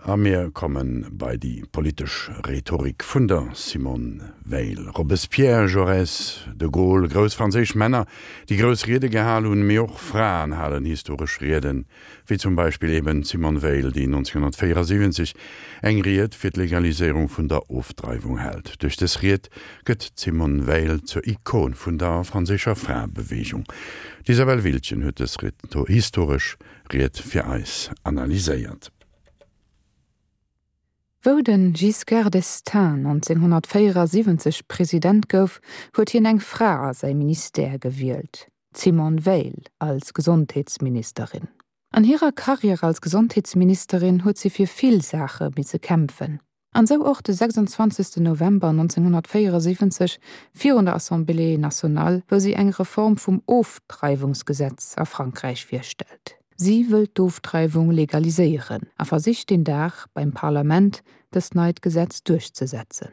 A mir komme bei déi politesch Rhetorik vun der Simone Veil. Robespierre, Jaurès, de Gaulle, grouss franséisch Männer, déi grouss Riede gehal hunn, mee och Fraen halen historesch Rieden, wéi zum Beispill eben d'Simone Veil, déi 1974 eng Ried fir d'Legaliséierung vun der Ofdreiwung hält. Duerch dës Ried gëtt d'Simone Veil zur Ikon vun der franséischer Fraebeweegung. D'Isabelle Wildgen huet dës historesch Ried fir eis analyséiert. Wou de Giscard d'Estaing 1974 President gouf, huet hien eng Fra a säi Ministère gewielt, d'Simone Veil als Gesondheetsministerin. An hirer Karriär als Gesondheetsministerin huet si fir vill Saache misse kämpfen. An sou och de 26 November 1974 virun der Assemblée nationale, wou si eng Reform vum Ofdreiwungsgesetz a Frankräich virstellt. Si wëll d'Ofdreiwung legaliséieren a versicht deen Dag beim Parlament dëst neit Gesetz duerchzesetzen.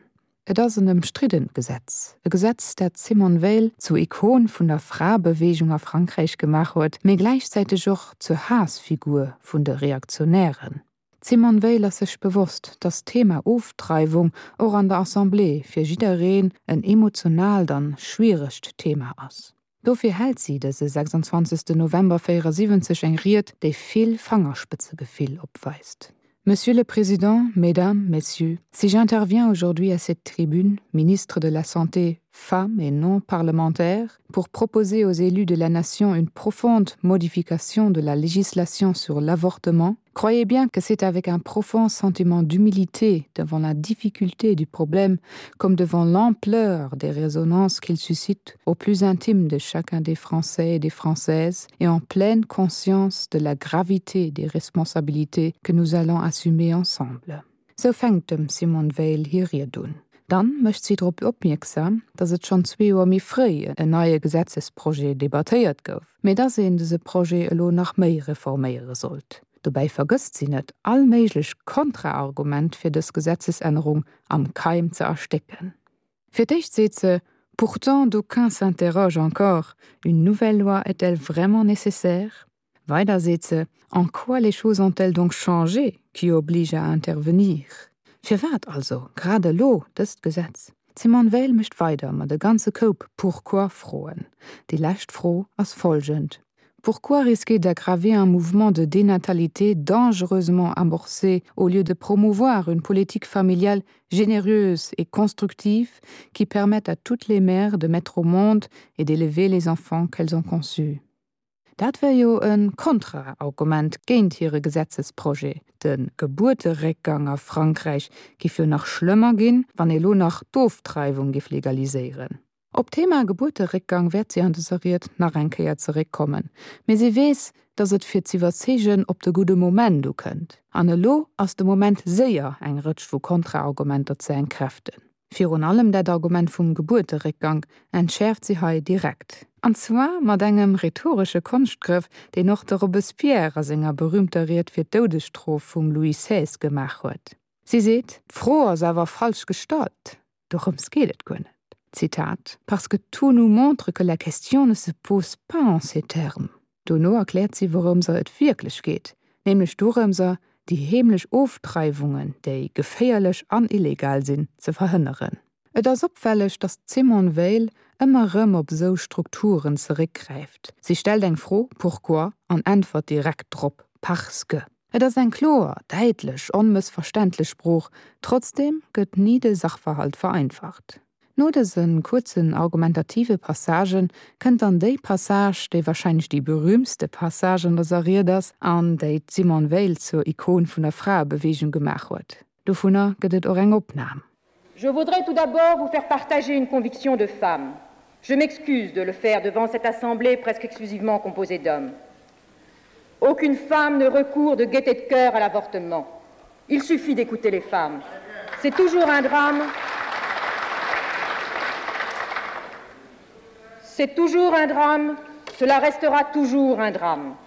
Et ass en ëmstriddent Gesetz, e Gesetz, dat d'Simone Veil zur Ikon vun der Fraebeweegung a Frankräich gemaach huet, mee gläichzäiteg och zur Haassfigur vun de Reaktionären. D'Simone Veil ass sech bewosst, datt d'Thema Ofdreiwung och an der Assemblée fir jiddereen en emotionaalt an schwieregt Thema ass. Dofir hält si dëse 26 November 74 eng Ried, déi vill Fangerspëtzegefill opweist. Monsieur le Président, Mesdames, Messieurs, si j'interviens aujourd'hui à cette tribune, ministre de la Santé, femme et non parlementaire, pour proposer aux élus de la nation une profonde modification de la législation sur l'avortement, Croyez bien que c'est avec un profond sentiment d'humilité devant la difficulté du problème comme devant l'ampleur des résonances qu'il suscite au plus intime de chacun des Français et des Françaises et en pleine conscience de la gravité des responsabilités que nous allons assumer ensemble. Sou fänkt dem Simone Veil hir Ried un. Dann mécht si drop opmierksam, datt et schonn zwee Joer méi fréi en neie Gesetzesprojet debattéiert gouf, mee datt een dëse Projet elo nach méi reforméiere sollt. Dobäi vergësst si net, all méiglech Kontraargument fir dës Gesetzesännerung am Keim ze erstécken. Fir d'éischt seet se, Pourtant d'aucuns s'interrogent encore, une nouvelle loi est-elle vraiment nécessaire? Weider seet se, En quoi les choses ont-elles donc changé qui obligent à intervenir? Firwat also grad elo dëst Gesetz? D'Simone Veil mécht weider mat e ganze Koup Pourquoi-Froen. Déi lescht Fro ass folgend, Pourquoi risquer d'aggraver un mouvement de dénatalité dangereusement amorcé au lieu de promouvoir une politique familiale généreuse et constructive qui permette à toutes les mères de mettre au monde et d'élever les enfants qu'elles ont conçus? Dat wär jo e Kontraargument géint hire Gesetzesprojet. De Gebuerteréckgang a Frankräich giff jo nach schlëmmer ginn, wann ee lo nach d'Ofdreiwung giff legaliséieren. Op d'Thema Gebuerteréckgang wäert si an dëser Ried nach eng Kéier zeréckkommen, mee si weess, datt et fir z'iwwerzeegen op de gudde Moment ukënnt. An elo ass de Moment séier eng Rëtsch vu Kontraargumenter ze entkräften. Virun allem dat Argument vum Gebuerteréckgank entschäerft si hei direkt. An zwar mat engem rhetoresche Konschtgrëff, deen och de Robespierre a senger berüümter Ried fir d'Doudesstrof vum Louis XVI gemaach huet. Si seet, D'Fro ass awer falsch gestallt, dorëms geet et guer net. Zitat, Parce que tout nous montre que la question ne se pose pas en ces termes. Dono erkläert si wourëmser et wierklech geet, nämlech dorëmser, déi heemlech Ofdreiwungen, déi geféierlech an illegal sinn, ze verhënneren. Et ass opfälleg, datt d'Simone Veil ëmmer erëm op esou Strukturen zeréckgräift. Si stellt eng Fro, pourquoi, an äntwert direkt drop, parce que. Et ass eng kloer, däitlech, onmëssverständlech Sprooch, trotzdeem gëtt ni de Sachverhalt vereinfacht. No dëse kuerzen argumentative Passagë kënnt dann déi Passage, déi warscheinlech déi berüümtste Passage an dëser Ried ass an déi d'Simone Veil zur Ikon vun der Fraebeweegung gemaach huet. Dovunner gëtt et och eng Opnam. Je voudrais tout d'abord vous faire partager une conviction de femme. Je m'excuse de le faire devant cette assemblée presque exclusivement composée d'hommes. Aucune femme ne recourt de gaieté de cœur à l'avortement. Il suffit d'écouter les femmes. C'est toujours un drame. C'est toujours un drame, cela restera toujours un drame.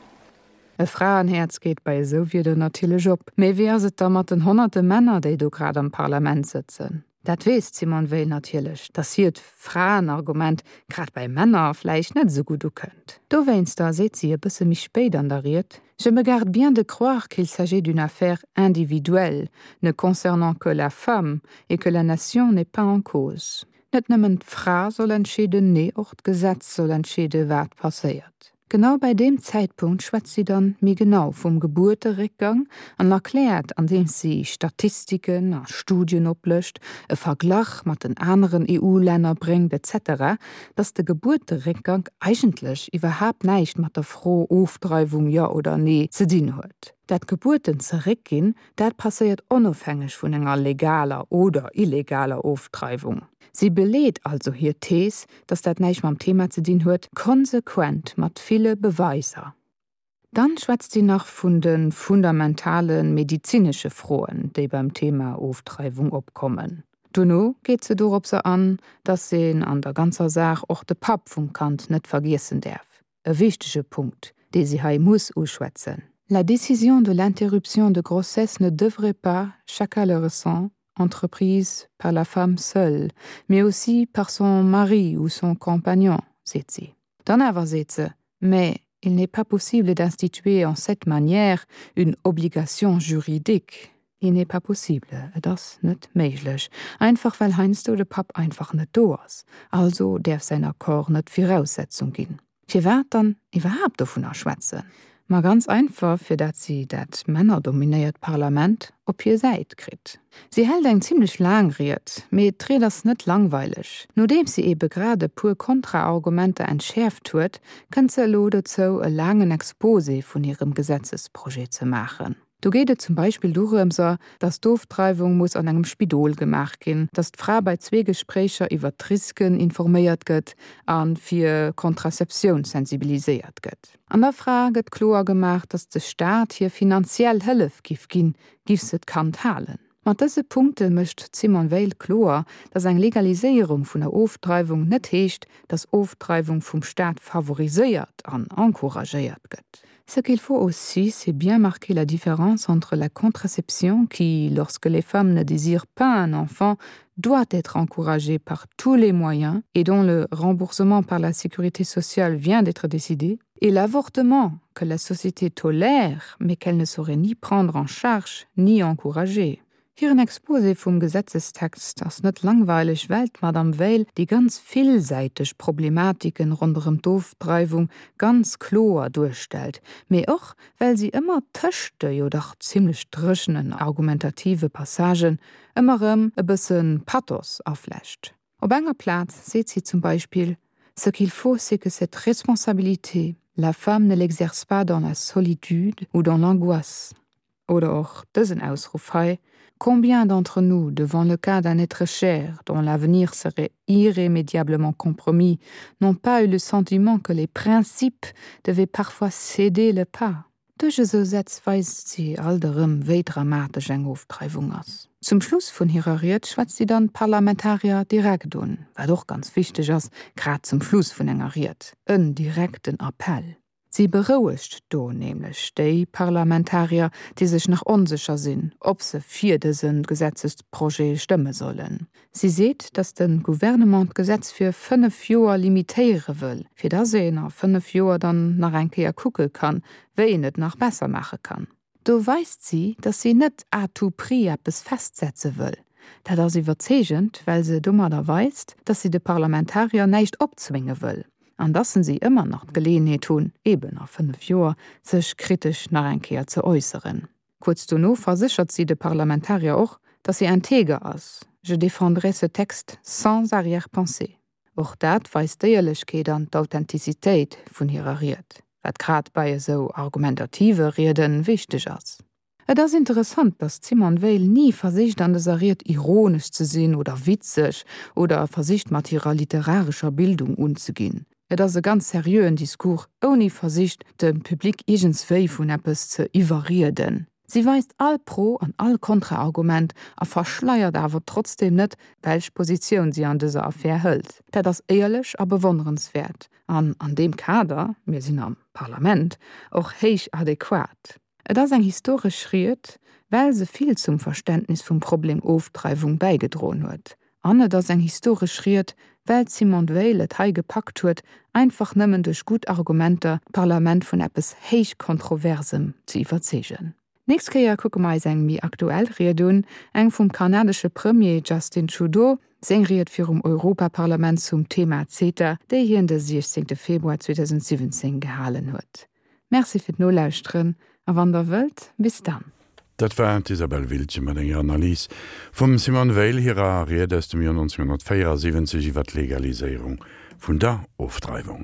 E Fraenhäerz geet bei esou Wieder natierlech op. Mee wéi ass et da mat den honnerte Männer, déi do grad am Parlament sëtzen? Dat weess d'Simone Veil natierlech, datt hiert Fraenargument grad bei Männer vläicht net esou gutt ukënnt. Dowéinster seet si e bësse méi spéit an der Ried, Je me garde bien de croire qu'il s'agit d'une affaire individuelle, ne concernant que la femme, et que la nation n'est pas en cause. Net nëmmen d'Fra soll entscheeden, nee och d'Gesetz soll entscheede wat passéiert. Genau bei deem Zäitpunkt schwätzt si dann méi genau vum Gebuerteréckgang an erkläert, andeems si Statistiken a Studien oplëscht, e Verglach mat den aneren EU-Länner bréngt etc., dass de Gebuerteréckgank eigentlech iwwerhaapt näischt mat der Fro Ofdreiwung jo oder nee ze dinn huet. Dat d'Gebuerten zeréckginn, dat passéiert onofhängeg vun enger legaler oder illegaler Ofdreiwung. Si beleet also hir Thees, dass dat näischt mam Thema ze dinn huet, konsequent mat ville Beweiser. Dann schwätzt si nach vun de fundamentale medizinesche Froen, déi beim Thema Ofdreiwung opkommen. Dono geet se doropser an, dass een an der ganzer Saach och de Papp vum Kand net vergiessen däerf. E wichtege Punkt, dee si hei muss uschwätzen. La décision de l'interruption de grossesse ne devrait pas, chacun le ressent, entreprise par la femme seule, mais aussi par son mari ou son compagnon, seet si. Dann awer seet se, Mais il n'est pas possible d'instituer en cette manière une obligation juridique. Il n'est pas possible, et ass net méiglech, einfach well heiansdo de Papp einfach net do ass, also däerf säin Accord net Viraussetzung ginn. Firwat dann iwwerhaapt dovunner schwätzen? Ma ganz einfach, fir dat si dat männerdominéiert Parlament op hir Säit kritt. Si hält eng zimmlech laang Ried, mee d'Ried ass net langweileg. Nodeems si ebe grad e puer Kontraargumenter entschäerft huet, kënnt se elo dozou, e laangen Exposé vun hirem Gesetzesprojet ze maachen. Do geet et zum Beispill dorëmser, datt d'Ofdreiwung muss an engem Spidol gemaach ginn, datt d'Fra bei Zweegespréicher iwwert d'Risken informéiert gëtt a fir Contraceptioun sensibiliséiert gëtt. An der Fra gëtt kloer gemaach, datt de Staat hir finanziell Hëllef giff ginn, giff se d'Kand halen. Mat dëse Punkte mécht d'Simone Veil kloer, datt eng Legaliséierung vun der Ofdreiwung net heescht, datt Ofdreiwung vum Staat favoriséiert an encouragéiert gëtt. Ce qu'il faut aussi, c'est bien marquer la différence entre la contraception qui, lorsque les femmes ne désirent pas un enfant, doit être encouragée par tous les moyens et dont le remboursement par la sécurité sociale vient d'être décidé, et l'avortement que la société tolère, mais qu'elle ne saurait ni prendre en charge ni encourager. Hiren Exposé vum Gesetzestext ass net langweileg, well d'Madame Veil déi ganz villsäiteg Problematiken ronderëm d'Ofdreiwung ganz kloer duerstellt, mee och well si ëmmer tëscht de jo dach zimlech dréchenen argumentative Passagen ëmmer erëm e bësse Pathos aflecht. Op enger Plaz seet si zum Beispill, Ce qu'il faut, c'est que cette responsabilité, la femme ne l'exerce pas dans la solitude ou dans l'angoisse. Oder och dësen Ausruff hei, Combien d'entre nous, devant le cas d'un être cher dont l'avenir serait irrémédiablement compromis, n'ont pas eu le sentiment que les principes devaient parfois céder le pas? Duerch esou Sätz weist si alt erëm, wéi dramatesch eng Ofdreiwung ass. Zum Schluss vun hirer Ried schwätzt si dann d'Parlamentarier direkt un, wat och ganz wichteg ass, grad zum Schluss vun enger Ried, en direkten Appell. Si berouegt do nämlech déi Parlamentarier, déi sech nach onsécher sinn, ob se fir dëse Gesetzesprojet stëmme sollen. Si seet, datt de Gouvernement d'Gesetz fir 5 Joer limitéiere wëll, fir datt een a 5 Joer dann nach eng Kéier kucke kann, wéi een et nach besser maache kann. Do weist si, datt si net à tout prix eppes festsetze wëll. Dat ass iwwerzeegend, well se domadder weist, datt si de Parlamentarier näischt opzwénge wëll an datt se ëmmer nach d'Geleeënheet hunn, eben a 5 Joer, sech kritesch nach eng Kéier ze äusseren. Kuerz dono verséchert si de Parlamentarier och, datt si integer ass, Je défendrai ce texte sans arrière-pensée. Och dat weist d'Éierlechkeet an d'Authentizitéit vun hirer Ried, wat grad bei esou argumentative Riede wichteg ass. Et ass interessant, datt d'Simone Veil ni versicht an dëser Ried ironesch ze sinn oder witzeg oder versicht mat hirer literarescher Bildung unzeginn. Et ass e ganz seriöen Discours, ouni versicht, de Public iergendswéi vun eppes ze iwwerrieden. Si weist all Pro an all Kontraargument a verschleiert awer trotzdeem net, welch Positioun si an dëser Affär hëlt. Dat ass éierlech a bewonnerenswäert an an deem Kader, mir sinn am Parlament, och héich adequat. Et ass eng historesch Ried, well se vill zum Verständnis vum Problem Ofdreiwung bäigedroen huet. An et ass eng historesch Ried, well d'Simone Veil et hei gepackt huet, einfach nëmmen duerch gutt Argumenter d'Parlament vun eppes héich Kontroversem ze iwwerzeegen. Nächst Kéier kucke mer eis eng méi aktuell Ried un, eng vum kanadesche Premier Justin Trudeau, seng Ried virum Europaparlament zum Thema CETA, déi hien de 16 Februar 2017 gehalen huet. Merci fir d'Nolauschteren a wann der wëllt, bis dann. Dat war d'Isabelle Wiltgen mat enger Analys vum Simone Veil hirer Ried aus dem Joer 1974 iwwer d'Legaliséierung vun der Ofdreiwung.